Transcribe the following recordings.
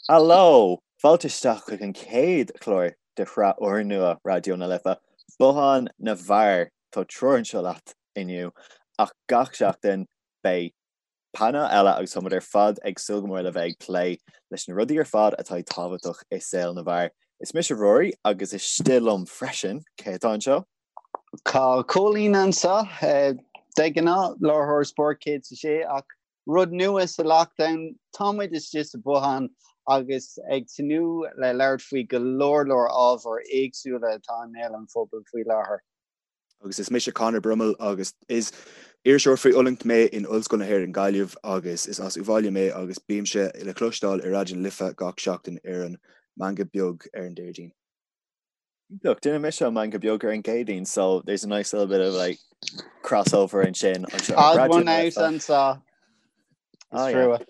Haló! Fáilte isteach chuig an chéad chlár de shraith úrnua Raidió na Life, Bothán na bhFear. Tá triúr anseo leat inniu, ach gach seachtain beidh painéal eile agus táimid ar fad ag súil go mór le bheith ag plé leis na rudaí ar fad atá tábhachtach i saol na bhfear. Is mise Rory agus istigh liom freisin, cé atá anseo? Tá Cóilín anseo, de ghnáth, láithreoir Spórt 106, ach Rud nua sa lockdown, tá muid istigh sa bhothán agus ag tnúth le labhairt faoi go leor leor ábhair éagsúla atá i mbéal an phobail faoi láthair. Agus is mise Conor Brummel agus is iriseoir faoi oiliúint mé in Ollscoil na hÉireann Gaillimh agus is as Uíbh Fhailí mé agus bímse le cloisteáil ar Raidió na Life gach seachtain ar an Meangadh Beag ar an Déardaoin. Look, déanann mise an Meangadh Beag ar an gCéadaoin, so there's a nice little bit of like crossover ansin. Odd one out anseo. Is trua.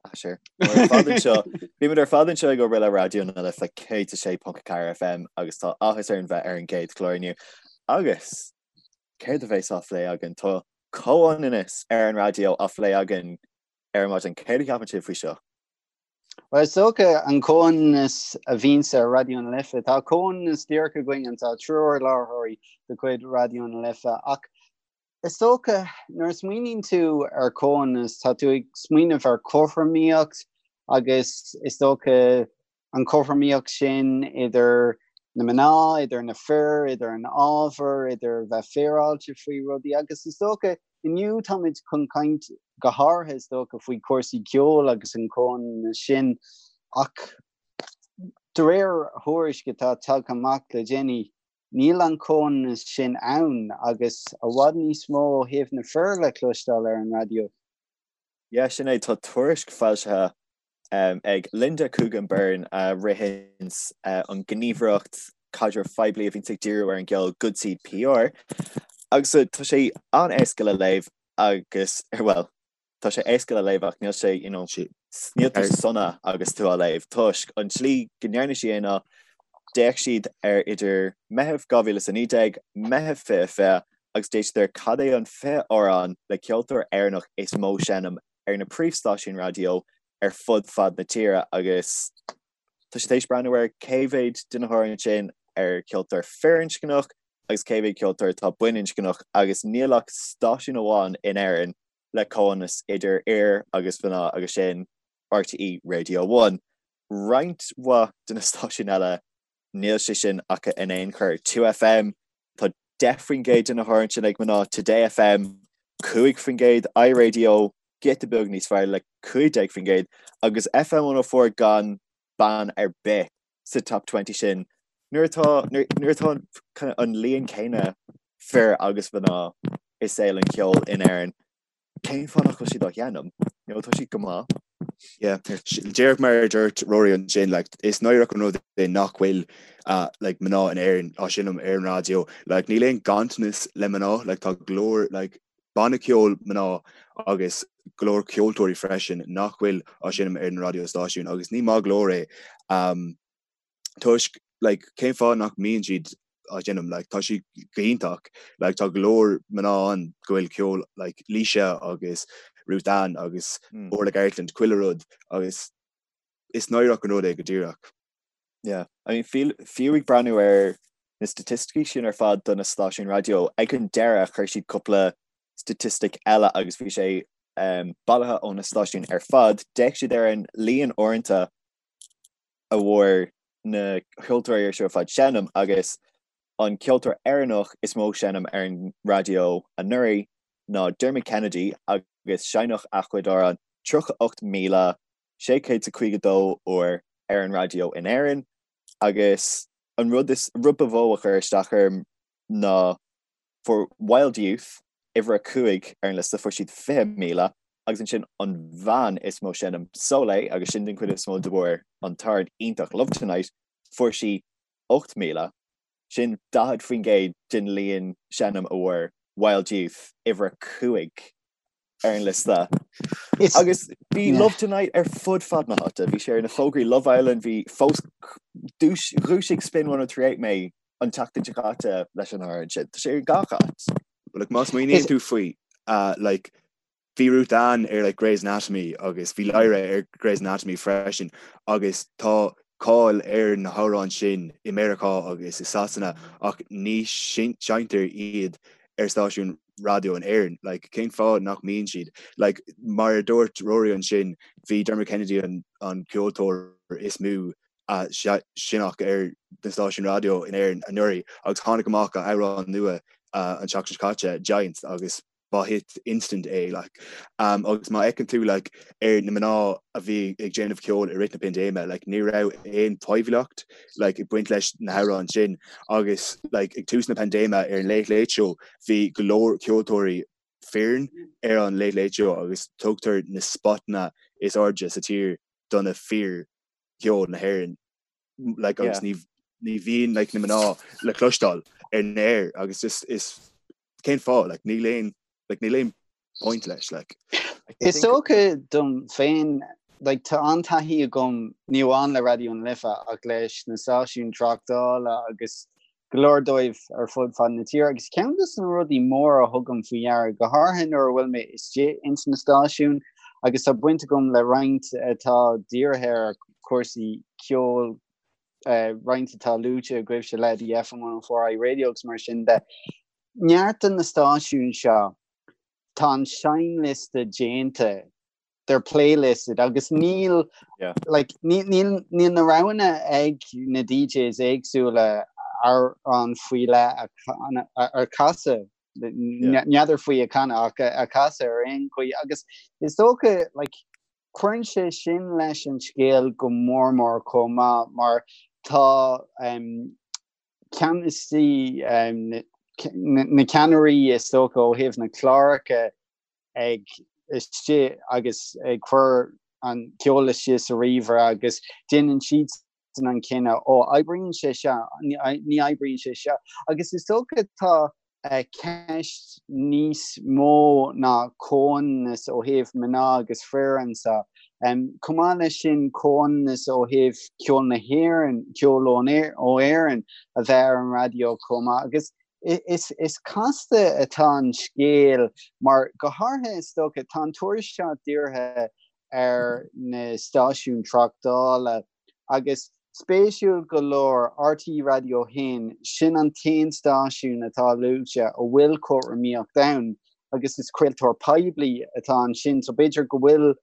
Ah, sure. Ar fad anseo, bímid ar fad anseo ag obair le Raidió na Life 106.4 FM agus tá áthas orainn bheith ar an gcéad chlár inniu. Agus céard a bheas á phlé againn? Tá comhionannas ar an raidió á phlé againn ar maidin. Céard a cheapann sibh faoi seo? Bhuel, is dócha an comhionannas a bhíonns ar Raidió na Life. Tá comhionannas díreach againn anseo, triúr láithreoirí de chuid Raidió na Life, ach is dócha nuair a smaoiníonn tú ar chomhionannas, tá tú ag smaoineamh ar chothromaíocht agus is dócha an chothromaíocht sin idir na mná, idir na fir, idir an ábhar, idir bheith féaráilte faoi rudaí agus is dócha Inniu táimid chun caint go háirithe is dócha faoi chúrsaí ceoil agus an comhionannas sin ach de réir thuairisc atá tagtha amach le déanaí níl an comhionannas sin ann agus i bhfad níos mó ó thaobh na fir le cloisteáil ar an raidió. Yeah, sin é, tá tuairisc foilsithe ag Linda Coogan Byrne a ritheanns an ghníomhaireacht caidrimh phoiblí a bhíonns ag díriú ar an gceol Good Seed PR agus tá sé an-éasca le léamh agus, bhuel, tá sé éasca le léamh ach níl sé, you know, níl tú sona agus tú á léamh toisc an tslí go ndearna sí é ná d'fhéach siad ar idir Meitheamh 2019, Meitheamh 2020 agus d'fhéach siad ar cad é an 20 amhrán le ceoltóir Éireannach is mó seinm ar na príomhstáisiúin raidió ar fud fad na tíre agus tá siad tar éis breathnú ar cé mhéad de na hamhráin sin ar ceoltóir firinscneach agus cé mhéad ceoltóir atá baininscneach agus níl ach stáisiún amháin in Éirinn le comhionannas idir fhir agus mhná agus sin RTÉ Radio One. Roinnt mhaith de na stáisiúin eile níl sé sin acu in aon chor. 2FM, tá 10% de na hamhráin sin ag mná, Today FM, 5%, iRadio, giota beag níos fearr le 15%, agus FM 104 gan bean ar bith sa top 20 sin. Nuair atá nuair atá an an líon céanna fir agus mná i saol an cheoil in Éirinn, Cén fáth nach bhfuil siad á sheinm? You know, tá siad go maith. Yeah. Díreach mar a dúirt Rory ansin, like, is náireach an rud é nach bhfuil uh, like, mná in Éirinn á seinm ar an raidió. Like, níl aon ganntanas le mná, like, tá go leor like, banna ceoil mná agus go leor ceoltóirí freisin nach bhfuil á seinm ar an raidió stáisiún agus ní maith go leor é. Um, toisc like cén fáth nach mbíonn siad á seinm like tá siad go hiontach like tá go leor mná ann go bhfuil ceol like Laoise agus Ruth Ann agus mm. Orla Gartland chuile rud agus is náireach an rud é go díreach. Yeah, I mean fiú ag breathnú ar na staitisticí sin ar fad do na stáisiúin raidió ag an deireadh chuir siad cúpla staitistic eile agus bhí sé um, bailithe ó na stáisiúin ar fad, d'fhéach siad ar an líon uaireanta a bhfuair na ceoltóirí seo ar fad seinm agus an ceoltóir Éireannach is mó seinm ar an raidió anuraidh ná Dermot Kennedy agus seinneadh a chuid amhrán 38,652 uair ar an raidió in Éirinn agus an rud is rud ba mhó a chuir isteach orm ná Fuair Wild Youth uimhir a 5 ar an liosta, fuair siad 20,000, agus ansin an bhean is mó seinm, Soleil, agus sin den chuid is mó de bharr an t-amhrán iontach Love Tonight, fuair sí 8,000. Sin 40% den líon seinm a bhfuair Wild Youth, uimhir a 5 ar an liosta. Agus bhí Love Tonight ar fud fad na háite, bhí sé ar na fógraí Love Island, bhí fós dhúisigh Spin 1038 mé an tseachtain seo caite leis an amhrán sin. Tá sé ar gach áit. But like má smaoiníonn tú faoi uh, like Bhí Ruth Ann ar like Grey's Anatomy agus bhí Lyra ar Grey's Anatomy freisin agus tá cáil ar na hamhráin sin i Meiriceá agus i Sasana ach ní seinntear iad ar stáisiún raidió in Éirinn. Like, cén fáth nach mbíonn siad? Like, mar a dúirt Rory ansin, bhí Dermot Kennedy an, an ceoltóir is mó a seinneadh ar na stáisiúin raidió in Éirinn anuraidh agus tháinig amach a amhrán nua an tseachtain seo caite, Giants, agus ba hit instant é like. Um, agus má fheiceann tú like, ar na mná a bhí ag déanamh ceoil i rith na paindéime, like, ní raibh aon poiblíocht like, ag baint leis na hamhráin sin agus like, ag tús na paindéime ar an Late Late Show bhí go leor ceoltóirí fireann ar an Late Late Show agus tugtar na spotanna is airde sa tír do na fir cheoil na hÉireann like, agus ní ní bhíonn like, na mná le cloisteáil ar an aer agus just is cén fáth like, níl aon like, níl aon point leis like. Is dócha dom féin like, tá an-taithí agam ní amháin le Raidió na Life ach leis na stáisiúin tráchtála agus go leor dóibh ar fud fad na tíre agus ceann de na rudaí móra a thugaim faoi deara go háirithe nuair a bhfuil mé istigh ins na stáisiúin agus tá baint agam le roinnt atá dírithe ar chúrsaí ceoil roinnt atá luaite agaibhse le the FM 104 iRadio agus mar sin de. Neart de na stáisiúin seo tá an seinnliosta déanta, they're playlisted agus níl yeah. like, níl, níl, níl na roghanna ag na DJs éagsúla amhrán faoi leith a, a chasadh n'fheadar faoi a chanadh ach a chasadh ar aon chaoi agus is dócha like, Cuireann sé sin leis an scéal go mór mór chomh maith mar tá ceannasaí, na ceannairí is dócha ó thaobh na cláracha ag istigh agus ag cur an ceol istigh sa ríomhaire agus déanann siadsan an cinneadh, ó oibríonn sé seo, ní oibríonn sé seo. Agus is dócha tá ceist níos mó ná comhionannas ó thaobh mná agus fir anseo. Chomh maith leis sin, comhionannas ó thaobh ceol na hÉireann, ceol ó Éirinn a bheith ar an raidió chomh maith. Agus is casta atá an scéal mar go háirithe is dócha, tá an tuairisc seo dírithe ar na stáisiúin tráchtála Agus spéisiúil go leor, RTÉ Raidió 1, sin an t-aon stáisiún atá luaite a bhfuil cothromaíocht ann agus is craoltóir poiblí atá ansin so b'fhéidir go bhfuil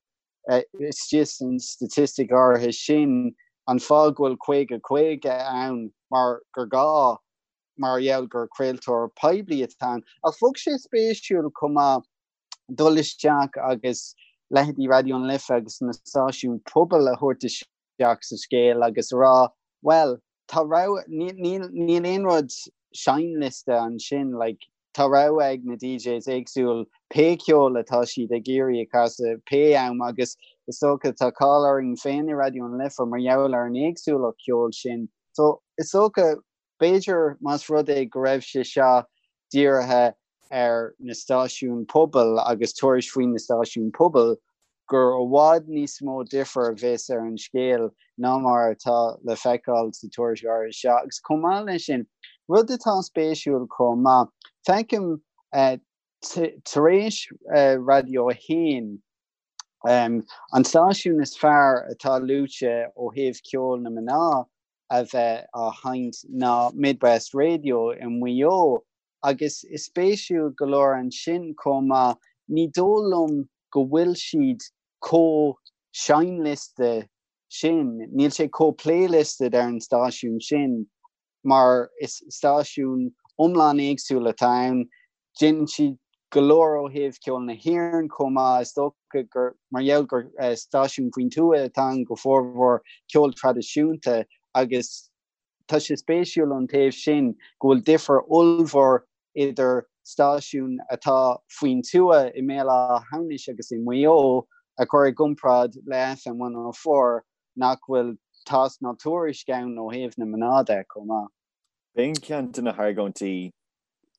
istigh san staitistic áirithe sin an fáth go bhfuil 50 50 ann mar gur gá mar gheall gur craoltóir poiblí atá ann. Ach bheadh sé spéisiúil chomh maith dul isteach agus leithéidí Raidió na Life agus na stáisiúin pobail a thabhairt isteach sa scéal agus a rá, bhuel, tá rogha, níl, níl aon rud seinnliosta ansin, like, tá rogha ag na DJs éagsúil pé ceol atá siad ag iarraidh a chasadh, pé am agus is dócha tá cáil orainn féin i Raidió na Life mar gheall ar an éagsúlacht ceoil sin. So, is dócha, b'fhéidir más rud é go raibh sé seo dírithe ar na stáisiúin pobail agus tuairisc faoi na stáisiúin pobail gur i bhfad níos mó difear a bheas ar an scéal ná mar atá le feiceáil sa tuairisc áirithe seo. Agus chomh maith leis sin, rud atá spéisiúil chomh maith, feicim tar éis Raidió 1, an stáisiún is fearr atá luaite ó thaobh ceol na mná a bheith á sheinnt ná Midwest Radio i Maigh Eo Agus is spéisiúil go leor ansin chomh maith, ní dóigh liom go bhfuil siad chomh seinnliosta sin, níl sé chomh playlisted ar an stáisiún sin mar is stáisiún iomlán éagsúil atá ann. Déanann siad go leor ó thaobh ceol na hÉireann chomh maith, is dócha gur mar gheall gur stáisiún faoin tuath atá ann go formhór ceol traidisiúnta agus Tá sé spéisiúil ón taobh sin go bhfuil difear ollmhór idir stáisiún atá faoin tuath i mBéal Átha hAmhnais agus i Maigh Eo a chur i gcomparáid le FM 104 nach bhfuil tásc ná tuairisc ann ó thaobh na mná de chomh maith. B'in ceann de na hargóintí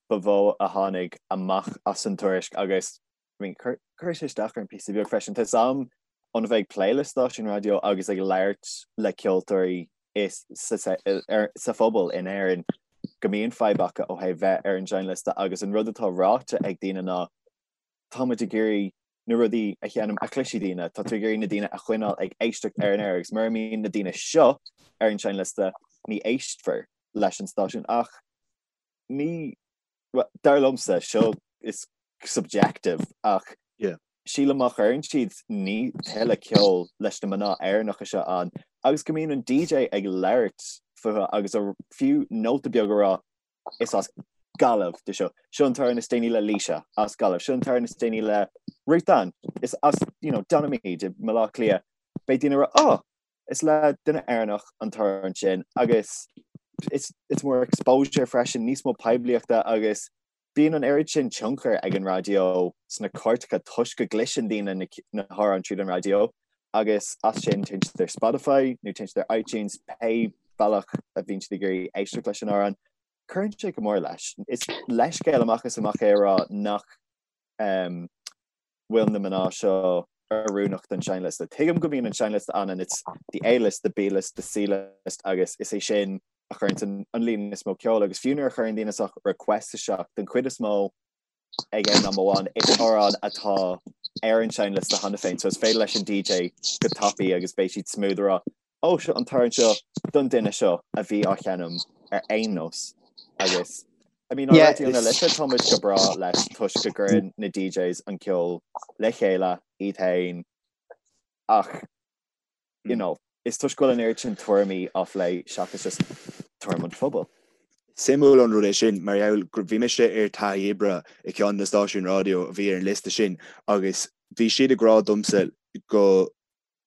ba mhó a tháinig amach as an tuairisc agus I mean, chuir sé isteach orm píosa beag freisin. Tá 'fhios a'm óna bheith ag plé le stáisiún raidió agus ag labhairt le ceoltóirí is sa phobal in Éirinn go mbíonn fadhb acu ó thaobh bheith ar an seinnliosta agus an rud atá ráite ag daoine ná tá muid ag iarraidh. Na rudaí a sheinnim a chloisfidh daoine, tá tú ag iarraidh na daoine a choinneáil ag éisteacht ar an aer agus mura mbíonn na daoine seo ar an seinnliosta ní éistfear leis an stáisiún ach ní, bhuel, dar liomsa, seo is subjective ach Yeah. sílim má chuireann siad ní tuilleadh ceoil leis na mná Éireannacha seo ann agus go mbíonn an DJ ag labhairt fúthu agus a fiú nóta beag a rá is as Gaillimh di seo. Seo an t-amhrán is déanaí le Laoise as Gaillimh. Seo an t-amhrán is déanaí le Ruth Ann is as you know, Donaghmede i mBaile Átha Cliath. Beidh daoine ag rá oh, is le duine Éireannach an t-amhrán sin agus it's, it's more exposure freisin, níos mó poiblíochta agus bíonn an oiread sin tionchar ag an raidió sna cairteacha toisc go gcloiseann daoine na, na hamhráin tríd an raidió agus as sin téann siad ar Spotify nó téann siad ar iTunes pé bealach a bhíonn siad ag iarraidh éisteacht leis an amhrán. Cuireann sé go mór leis. Is leithscéal amach is amach é a rá nach um, bhfuil na mná seo oiriúnach don seinnliosta. Tuigim go mbíonn an seinnliosta ann and it's the A-list, the B-list, the C-list agus is é sin a chuireann an, an líon is mó ceoil agus fiú nuair a chuireann daoine sórt request isteach den chuid is mó ag aon am amháin is amhrán atá ar an seinnliosta cheana féin so is féidir leis an DJ go tapaidh agus beidh siad smooth a rá ó seo an t-amhrán seo don duine seo a bhí á sheinm ar aon nós agus I mean, yeah, Raidió na Life tá muid go breá leis toisc go gcuireann na DJs an ceol le chéile iad féin ach you know, is toisc go bhfuil an oiread sin tuairimí á phlé seachas just tuairim an phobail. Suimiúil an rud é sin mar gheall gur bhí mise ar taithí oibre i ceann de na stáisiúin raidió a bhí ar an liosta sin agus bhí siad ag rá domsa go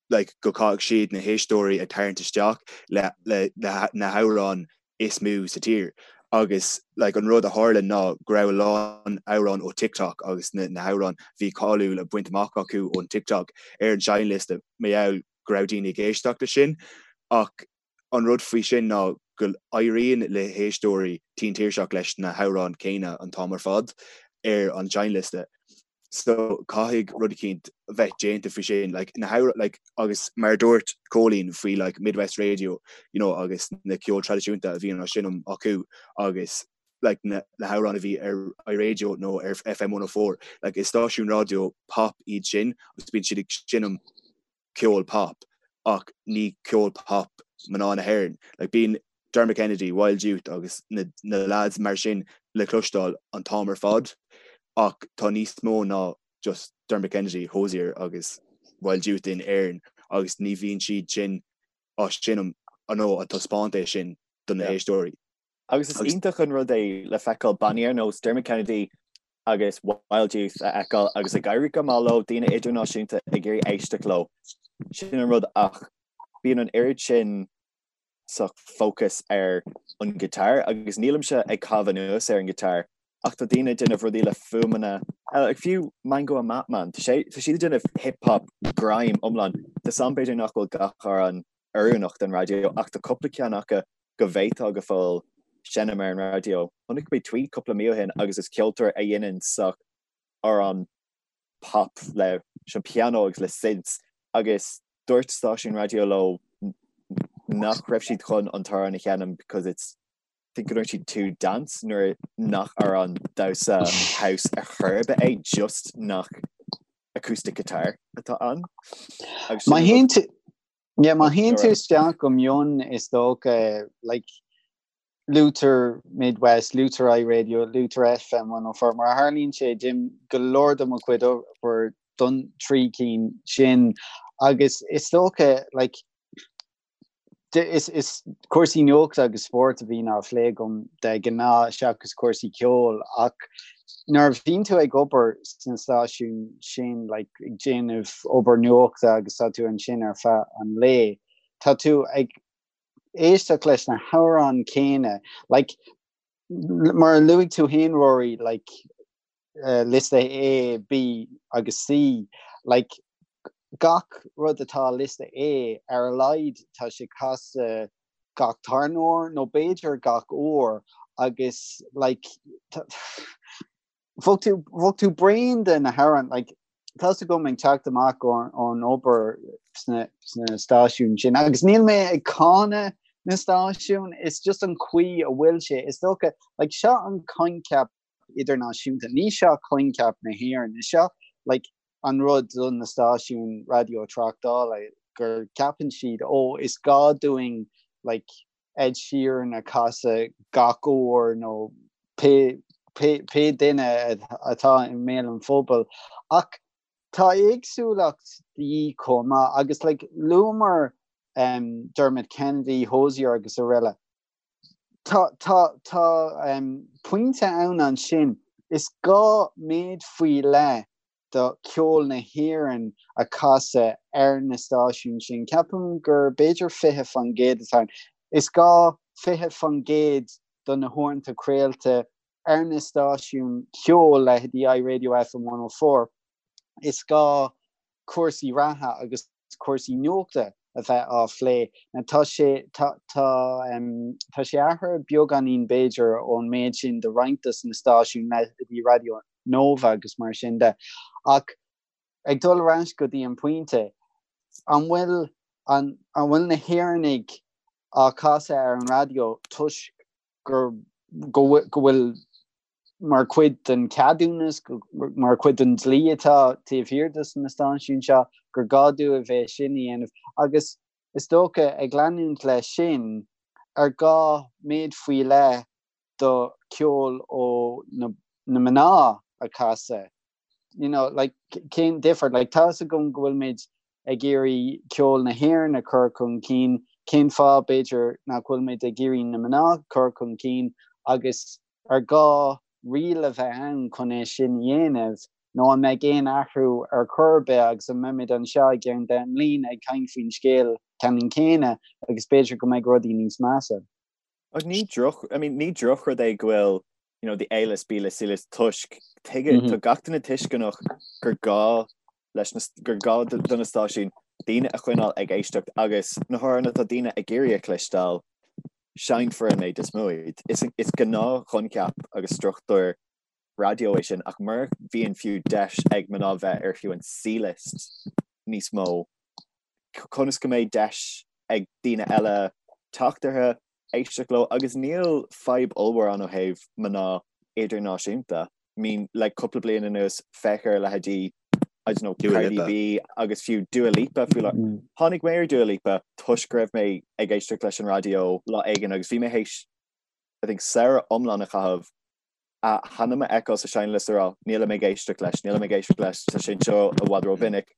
like go gcaithfidh siad na héisteoirí a tarraingt isteach le le na hamhráin is mó sa tír agus like an rud a tharla ná go raibh a lán amhrán ó TikTok agus na na hamhráin bhí cáiliúil a baint amach acu ón TikTok ar an seinnliosta mar gheall go raibh daoine ag éisteacht leis sin ach an rud faoi sin ná go éiríonn le héisteoirí tinn tuirseach leis na hamhráin céanna an t-am ar fad ar an seinnliosta. So caithfidh rud eicínt bheith déanta faoi sin like na hamhráin like agus mar a dúirt Cóilín faoi like Midwest Radio you know agus na ceol traidisiúnta a bhíonn á seinm acu agus like na na hamhráin a bhí ar iRadio nó ar FM 104 like is stáisiún raidió pop iad sin agus bíonn siad ag seinm ceol pop ach ní ceol pop mná na hÉireann. Like bíonn Dermot Kennedy, Wild Youth agus na na lads mar sin le cloisteáil an t-am ar fad ach tá níos mó ná just Dermot Kennedy, Hozier agus Wild Youth in Éirinn agus ní bhíonn siad sin á seinm nó á taispeáint é sin do na héisteoirí. Agus is iontach an rud é le feiceáil bannaí ar nós Dermot Kennedy agus Wild Youth a fheiceáil agus ag éirí go maith leo, daoine idirnáisiúnta ag iarraidh éisteacht leo. Sin an rud ach bíonn an oiread sin sórt focus ar an guitar agus nílimse ag caitheamh anuas ar an guitar ach tá daoine ag déanamh rudaí le fuaimeanna eile, like fiú Mango and Matman, tá sé tá siad ag déanamh hip hop grime iomlán. Tá a fhios agam b'fhéidir nach bhfuil gach amhrán oiriúnach don raidió ach tá cúpla ceann acu go bhféadfá go fóill seinm ar an raidió. Chonaic mé tweet cúpla mí ó shin agus is ceoltóir a dhéanann sórt amhrán pop leis an pianó agus le synths agus dúirt stáisiún raidió leo nach raibh siad chun an t-amhrán a sheinm because it's I think go ndúirt siad too dance nuair nach amhrán damhsa house ar chor ar bith é just nach acoustic guitar atá ann. Agus sin an rud. Yeah, má théann tú isteach go mion is dócha like luaitear Midwest, luaitear iRadio, luaitear FM 104, mar a tharlaíonn sé déanaim go leor de mo chuid obair don trí cinn sin agus is dócha like is is cúrsaí nuachta agus spóirt a bhíonn á phlé agam de ghnáth seachas cúrsaí ceoil ach nuair a bhíonn tú ag obair sna stáisiúin sin like ag déanamh obair nuachta agus tá tú ansin ar feadh an lae, tá tú ag éisteacht leis na hamhráin céanna like mar a luaigh tú féin Rory like uh, liosta A, B agus C like gach rud atá liosta A ar a laghad tá sé casta gach tarna huair nó b'fhéidir gach uair agus like bheadh tú bheadh tú bréan de na hamhráin like tá's agam ag teacht amach ón obair sna sna stáisiúin sin agus níl mé ag cáineadh na stáisiún is just an chaoi a bhfuil sé is dócha like seo an coincheap idirnáisiúnta ní seo coincheap na hÉireann is seo like. an rud do na stáisiúin raidió tráchtála gur ceapann siad ó is gá dúinn like Ed Sheeran a chasadh gach uair nó pé pé duine atá i mbéal an phobail ach tá éagsúlacht de dhíth chomh maith agus like luamar um, Dermot Kennedy, Hozier agus araile. Tá tá tá um, pointe ann ansin is gá méid faoi leith do cheol na hÉireann a chasadh ar na stáisiúin sin. Ceapaim gur b'fhéidir 20% atá ann. Is gá 20% do na huaireanta craolta ar na stáisiúin cheoil, leithéidí iRadio FM 104. Is gá cúrsaí reatha agus cúrsaí nuachta a bheith á phlé. Now tá sé tá tá tá sé athraithe beagáinín b'fhéidir ón méid sin do roinnt dos na stáisiúin leithéidí Raidió Nova agus mar sin de. Ach ag dul ar ais go dtí an pointe, an bhfuil an an bhfuil na hÉireannaigh á casadh ar an raidió toisc gur go go bhfuil mar chuid den cheadúnas, mar chuid den dlí atá taobh thiar dos na stáisiúin seo, gur gá dóibh é sin a dhéanamh. Agus is dócha, ag leanúint leis sin, ar gá méid faoi leith do cheol ó na mná a chasadh? You know, like, cén difear? Like, tá's agam go bhfuilimid ag iarraidh ceol na hÉireann a chur chun cinn, cén fáth, b'fhéidir, nach bhfuilimid ag iarraidh na mná a chur chun cinn agus ar gá riail a bheith ann chun é sin a dhéanamh nó an mbeidh aon athrú ar chor ar bith agus an mbeimid anseo i gceann 10 mbliain ag caint faoin scéal ceannann céanna agus b'fhéidir go mbeidh rudaí níos measa. Ach ní droch, I mean, ní drochrud é go bhfuil you know, the A-list, B-list, C-list toisc tuige, mm -hmm. tá gach duine tuisceanach gur gá leis na, gur gá do na stáisiúin daoine a choinneáil ag éisteacht agus na hamhráin atá daoine ag iarraidh a chloisteáil, seinnfear an méid is mó iad. Is, is gnáthchoincheap agus struchtúr raidió é sin ach mura mbíonn fiú deis ag mná bheith ar fiú an C-list níos mó, conas go mbeidh deis ag daoine eile teacht orthu, éisteacht leo agus níl fadhb ollmhór ann ó thaobh mná idirnáisiúnta. I mean, le cúpla bliain anuas, féach ar leithéidí, I don't know, Cardi B agus fiú Dua Lipa faoi láthair. Mm. Tháinig mé ar Dua Lipa toisc go raibh mé ag éisteacht leis an raidió lá éigin agus bhí mé théis, I think, samhradh iomlán a chaitheamh a hainm a fheiceáil sa seinnliosta a rá, nílim ag éisteacht leis, nílim ag éisteacht leis, tá sé anseo i bhfad rómhinic.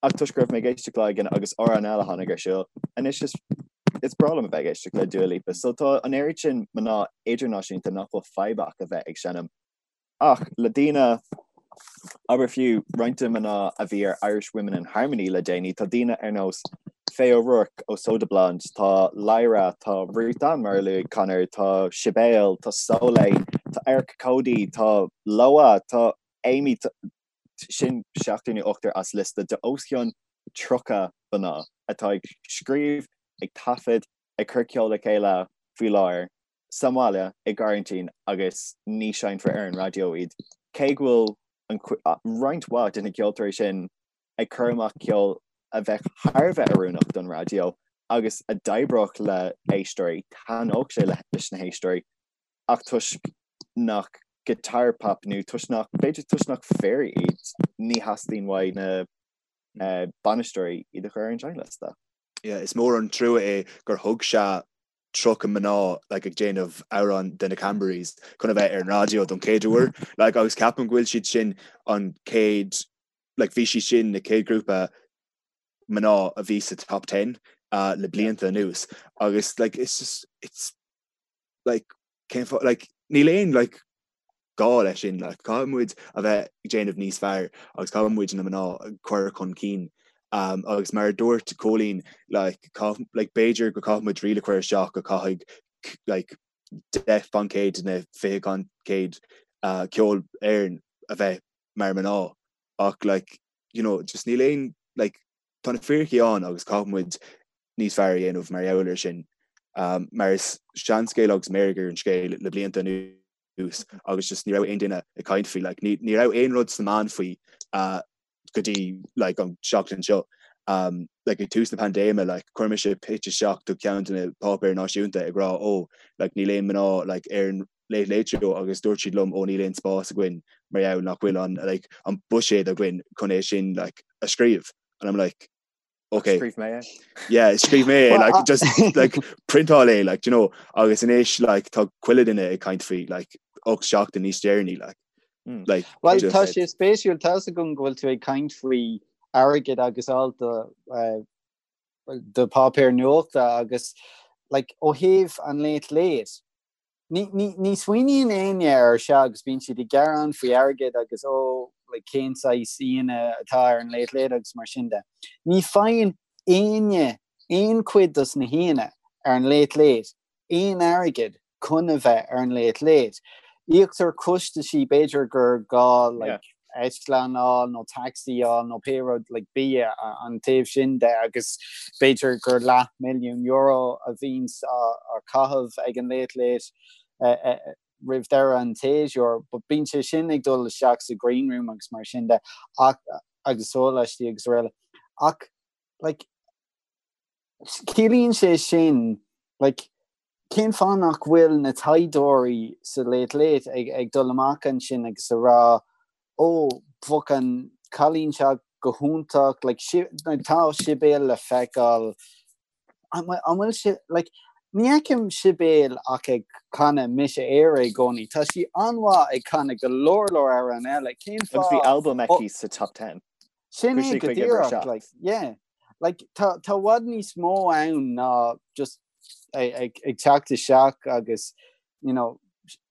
Ach toisc go raibh mé ag éisteacht lá éigin agus amhrán eile a tháinig ar siúl, anois is is breá liom a bheith ag éisteacht le Dua Lipa. So tá an oiread sin mná idirnáisiúnta nach bhfuil fadhb acu a bheith ag seinm. Ach le daoine, abair fiú roinnt de mná a bhí ar Irish Women in Harmony le déanaí, tá daoine ar nós Faye O'Rourke ó Soda Blonde, tá Lyra, tá Ruth Ann mar a luaigh Conor, tá Sibéal, tá Soleil, tá Erica Cody, tá Loah, tá Amy, Sin seachtar nó ochtar as liosta de os cionn 30 mná atá ag scríobh, ag taifead, ag cur ceol le chéile faoi láthair sa mbaile i gcoraintín agus ní seinnfear ar an raidió iad. Cé go bhfuil roinnt mhaith de na ceoltóirí sin ag cur amach ceol a bheadh thar a bheith oiriúnach don raidió agus a d'oibreodh le héisteoirí, thaitneodh sé leis na héisteoirí ach toisc nach guitar pop nó toisc nach, b'fhéidir toisc nach fir iad, ní theastaíonn uaidh na bainisteoirí iad a chur ar an seinnliosta. Yeah, is mór an trua é gur thug sé 30 mná like, ag déanamh amhrán de na Cranberries chun a bheith ar an raidió don chéad uair. Like, agus ceapaim go bhfuil siad sin an chéad, like, bhí siad sin na chéad grúpa mná a bhí sa top 10 uh, le blianta anuas. Agus like, it's just, it's like, cén fáth, like, níl aon, like, gá leis sin, like, caithfidh muid a bheith ag déanamh níos fearr agus caithfidh muid na mná a chur chun cinn. Um, agus mar a dúirt Cóilín, like, caith, like, b'fhéidir go caithfidh muid riail a chur isteach go caithfidh, like, 10% na 20% uh, ceol Éireann a bheith mar mná ach like, you know, just níl aon, like, tá na fíricí ann agus caithfidh muid níos fearr a dhéanamh mar gheall air sin. Mar is seanscéal agus meirg ar an scéal le blianta anuas agus just ní raibh aon duine ag caint faoi. Like, ní, ní raibh aon rud sna meáin faoi uh, go dtí like, an seachtain seo. Um, like, ag tús na paindéime, like, chuir mise pitch isteach do ceann de na páipéir náisiúnta ag rá ó, like, níl aon mná like, ar an Late Late Show agus dúirt siad liom ó níl aon spás againn. mar gheall nach bhfuil an like an buiséad againn chun é sin like a scríobh and I'm like okay Scríobh mé é. yeah scríobh mé é like just like printáil é like you know agus anois like tá chuile duine ag caint faoi like 8 seachtain níos deireanaí like mm. like Well tá sé spéisiúil tá a fhios agam go bhfuil tú ag caint faoi airgead agus alt do uh, do páipéar nuachta agus like ó thaobh an Late Late Ní, ní, ní smaoiníonn éinne air seo agus bíonn siad ag gearán faoi airgead agus ó, like, cén saghas aíonna atá ar an Late Late agus mar sin de. Ní faigheann éinne aon chuid dos na haíonna ar an Late Late aon airgead chun a bheith ar an Late Late. Íoctar costaisí, b'fhéidir gur gá, like, eitleán a fháil nó taxi a fháil nó pé rud like bia an taobh sin de agus b'fhéidir gur leath milliún euro a bhíonns á chaitheamh ag an Late Late roimh deireadh an tséasúir but bíonn sé sin ag dul isteach sa green room agus mar sin de ach agus sóláistí agus araile ach like ciallaíonn sé sin like Cén fáth nach bhfuil na taighdeoirí sa Late Late ag ag dul amach ansin agus a rá ó bheadh an cailín seo go hiontach like like tá Sibéal le feiceáil an bhfuil sé like ní fheicim Sibéal ach ag canadh Mise Éire i gcónaí. Tá sí an-mhaith ag canadh go leor leor amhrán eile. Cén fáth? Agus bhí albam aici sa top 10. Sin é go díreach like yeah. Like tá tá i bhfad níos mó ann ná just ag teacht isteach agus you know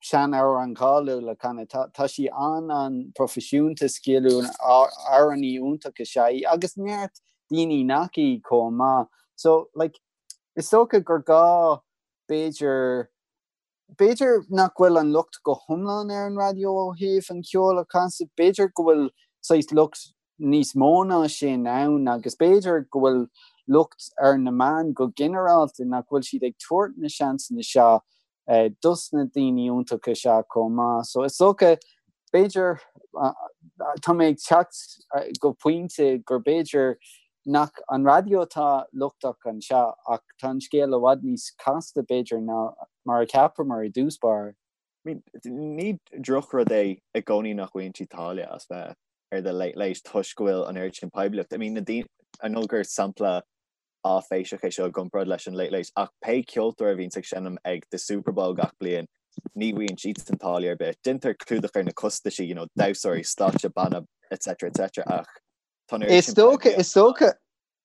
sean-amhrán cáiliúil a chanadh. Tá tá sí an-an-proifisiúnta sciliúil amhránaí iontach is ea í agus neart daoine nach í chomh maith. So like is dócha gur gá b'fhéidir B'fhéidir nach bhfuil an locht go hiomlán ar an raidió ó thaobh an cheoil a chasadh, b'fhéidir go bhfuil saghas locht níos mó ná sin ann agus b'fhéidir go bhfuil locht ar na meáin go ginearálta nach bhfuil siad ag tabhairt na seansanna seo dos na daoine iontacha seo chomh maith. So is dócha, b'fhéidir, tá mé ag teacht go pointe gur b'fhéidir nach an raidió atá lochtach anseo ach tá an scéal i bhfad níos casta, b'fhéidir, ná mar a cheapamar i dtús báire. I mean, ní drochrud é i gcónaí nach bhfaigheann siad táille as bheith ar The Late Late toisc go bhfuil an oiread sin poiblíocht. I mean, na daoine, I know gur sampla áiféiseach é seo i gcomparáid leis an Late Late ach pé ceoltóir a bhíonns ag seinm ag The Super Bowl gach bliain, ní bhfaigheann siadsan táille ar bith. Déantar clúdach ar na costaisí, you know, damhsóirí, stáitse, banna, etc etc ach Is dócha, is dócha,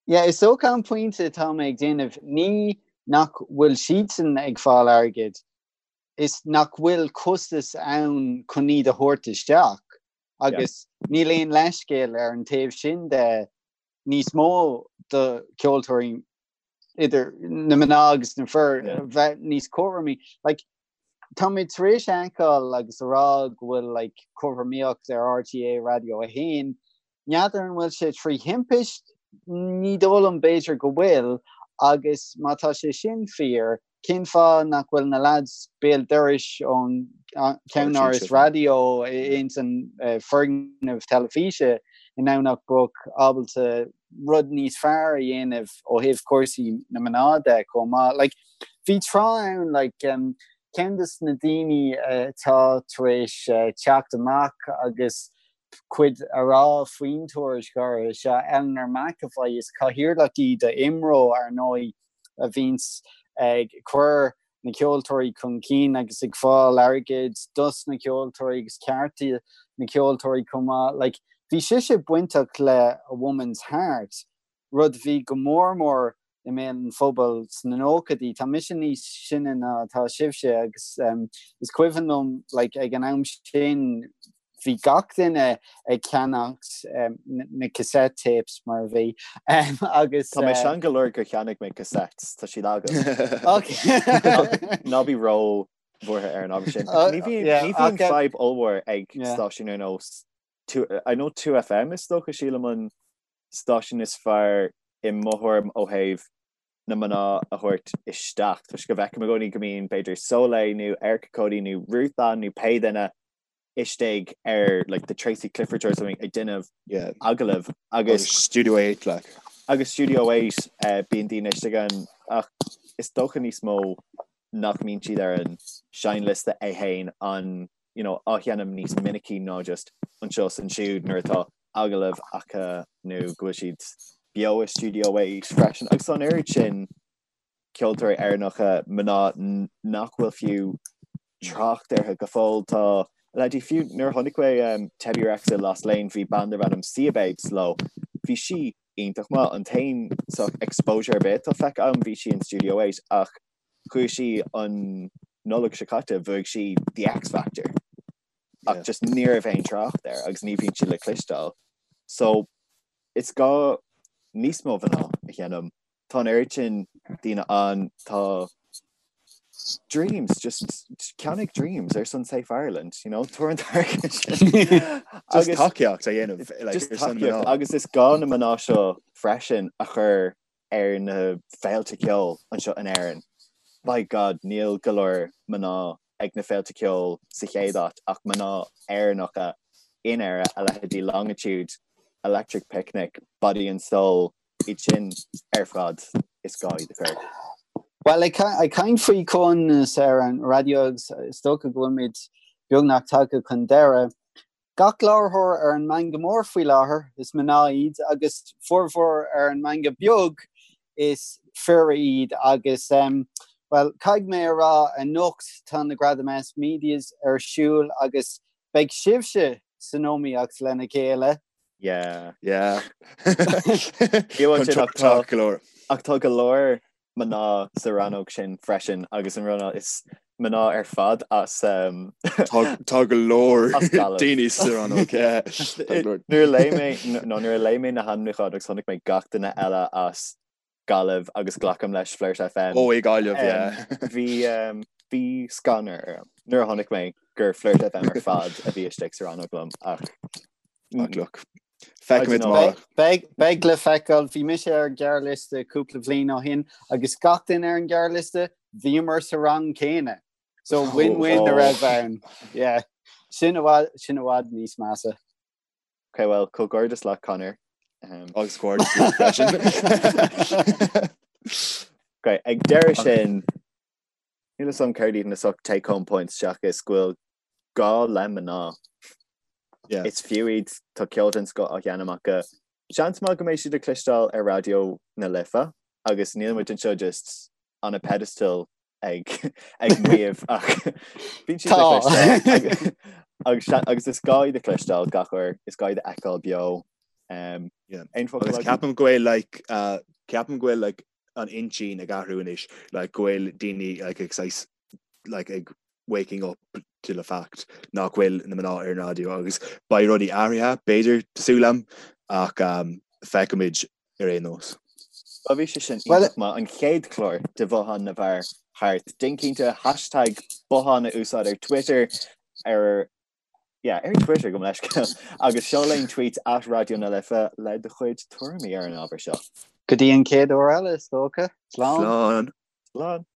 yeah, is dócha an pointe atá mé ag déanamh, ní nach bhfuil siadsan ag fáil airgid, is nach bhfuil costas ann chun iad a thabhairt isteach agus níl aon leithscéal ar an taobh sin de níos mó do cheoltóirí idir na mná agus na fir bheith níos cothromaí. Like, tá mé tar éis a fheiceáil agus a rá go bhfuil like, cothromaíocht ar RTÉ Radio 1. N'fheadar an bhfuil sé trí thimpist, ní dóigh liom b'fhéidir go bhfuil, agus má tá sé sin fíor, cén fáth nach bhfuil na lads béal dorais ón cheannáras raidió ins an foirgneamh teilifíse i nDomhnach Broc ábalta rud níos fearr a dhéanamh ó thaobh cúrsaí na mná de chomh maith. Like, bhí tráth ann, like, um, ceann de na daoine atá tar éis uh, teacht amach agus cuid a rá faoin tuairisc áirithe seo, Eleanor McEvoy, is cathaoirleach í do IMRO ar ndóigh a bhíonns ag cur na ceoltóirí chun cinn agus ag fáil airgid dos na ceoltóirí agus cearta na ceoltóirí chomh maith. Like, bhí sise bainteach le A Woman's Heart, rud a bhí go mór mór i mbéal an phobail sna nóchaidí. Tá mise níos sine ná atá sibhse agus um, is cuimhin liom like, ag an am sin bhí gach duine ag ceannacht na cassette tapes mar a bhí agus. Tá mé sean go leor gur cheannaigh mé cassettes, tá siad agam. Ná bí ró bhuartha ar an ábhar sin. Ní bhíonn fadhb ollmhór ag stáisiún ar nós I know 2FM is dócha sílim an stáisiún is fearr i mo thuairim ó thaobh na mná a thabhairt isteach toisc go bhfeicim i gcónaí go mbíonn b'fhéidir Soleil nó Erica Cody nó Ruth Ann nó pé duine istigh ar like the Tracy Clifford or something ag déanamh yeah. agallamh agus Studio 8 like. Agus Studio 8 uh, bíonn daoine istigh ann ach is dócha níos mó nach mbíonn siad ar an seinnliosta é féin an. you know, á sheinm níos minicí ná just anseo is ansiúd nuair atá agallamh acu nó go bhfuil siad beo i Studio 8 freisin. Agus tá an oiread sin ceoltóirí Éireannacha mná nach bhfuil fiú trácht orthu go fóill. Tá leithéidí fiú nuair a chonaic mé um, Tebi Rex i Lost Lane bhí bean darb ainm Siyababes leo. Bhí sí iontach maith. An t-aon sort exposure ar bith atá feicthe agam bhí sí in Studio 8 ach chuaigh sí an Nollaig seo caite bhuaigh sí The X Factor ach just ní raibh aon trácht air agus ní bhíonn sí le cloisteáil. So is gá níos mó mná a sheinm. Tá an oiread sin daoine ann tá Dreams just ceannaigh Dreams ar son Safe Ireland, you know, tabhair an t-airgead sin. Just tacaíocht a dhéanamh like, Just ar son tacaíocht mná. agus is gá na mná seo freisin a chur ar na féilte ceoil anseo in Éirinn. By God, níl go leor mná ag na féilte ceoil sa chéad áit ach mná Éireannacha in Éire, a leithéidí Longitude, Electric Picnic, Body and Soul, iad sin ar fad is gá iad a chur. Bhuel, ag caint faoi comhionannas ar an raidió agus is dócha go bhfuilimid beagnach tagtha chun deireadh, Gach láithreoir ar an meangadh mór faoi láthair, is mná iad, agus formhór ar an meangadh beag, is fir iad. Agus, bhuel, caithfidh mé a rá, anocht tá na Gradaim S Medias ar siúl agus beidh sibhse san iomaíocht lena chéile. Yeah. Yeah. Contúirteach go leor. Ach tá go leor mná sa rannóg sin freisin agus an rud is mná ar fad as Tá go leor daoine sa rannóg. Nuair a léigh mé nó nuair a léigh mé na hainmniúcháin agus chonaic mé gach duine eile as Gaillimh agus glacaim leis Flirt FM. Ó i Gaillimh, yeah. Bhí bhí scanradh orm nuair a chonaic mé gur Flirt FM ar fad a bhí istigh sa rannóg liom ach Ach look. Feicfimid amárach. Beidh le feiceáil. Bhí mise ar an ghearrliosta cúpla bliain ó shin agus gach duine ar an ghearrliosta, bhíomar sa rang céanna. So win-win a raibh ann. Yeah. Sin i bhfad, sin i bhfad níos measa. Ok, well, comhghairdeas leat, Conor. Um, Agus comhghairdeas leat freisin. Ok, ag deireadh sin, Níl 'fhios a'm céard iad na sort take home points seachas go bhfuil gá le mná. Yeah. Is fiú iad, tá ceol den scoth á sheinm acu. Seans maith go mbeidh siad le cloisteáil ar Raidió na Life agus níl muid anseo just on a pedestal ag ag maíomh ach bíonn siad le Tá. cloisteáil agus, agus, agus is gá iad a chloisteáil gach uair, is gá iad a fheiceáil beo. Um, Yeah. aon focal Agus agat? ceapaim go bhfuil like uh, ceapaim go bhfuil like an intinn ag athrú anois like go bhfuil daoine like ag saghas like ag waking up to the fact nach bhfuil na mná ar an raidió agus beidh rudaí athraithe b'fhéidir tá súil agam ach um, feicfimid ar aon nós. Bhuel bhí sé sin iontach maith an chéad chlár de Bhothán na bhFear thart. Déan cinnte hashtag bothán a úsáid ar Twitter ar yeah, ar Twitter gabh mo leithscéal agus seol aon tweet at Raidió na Life le do chuid tuairimí ar an ábhar seo. Go dtí an chéad uair eile, is dócha. Slán. Slán. Slán.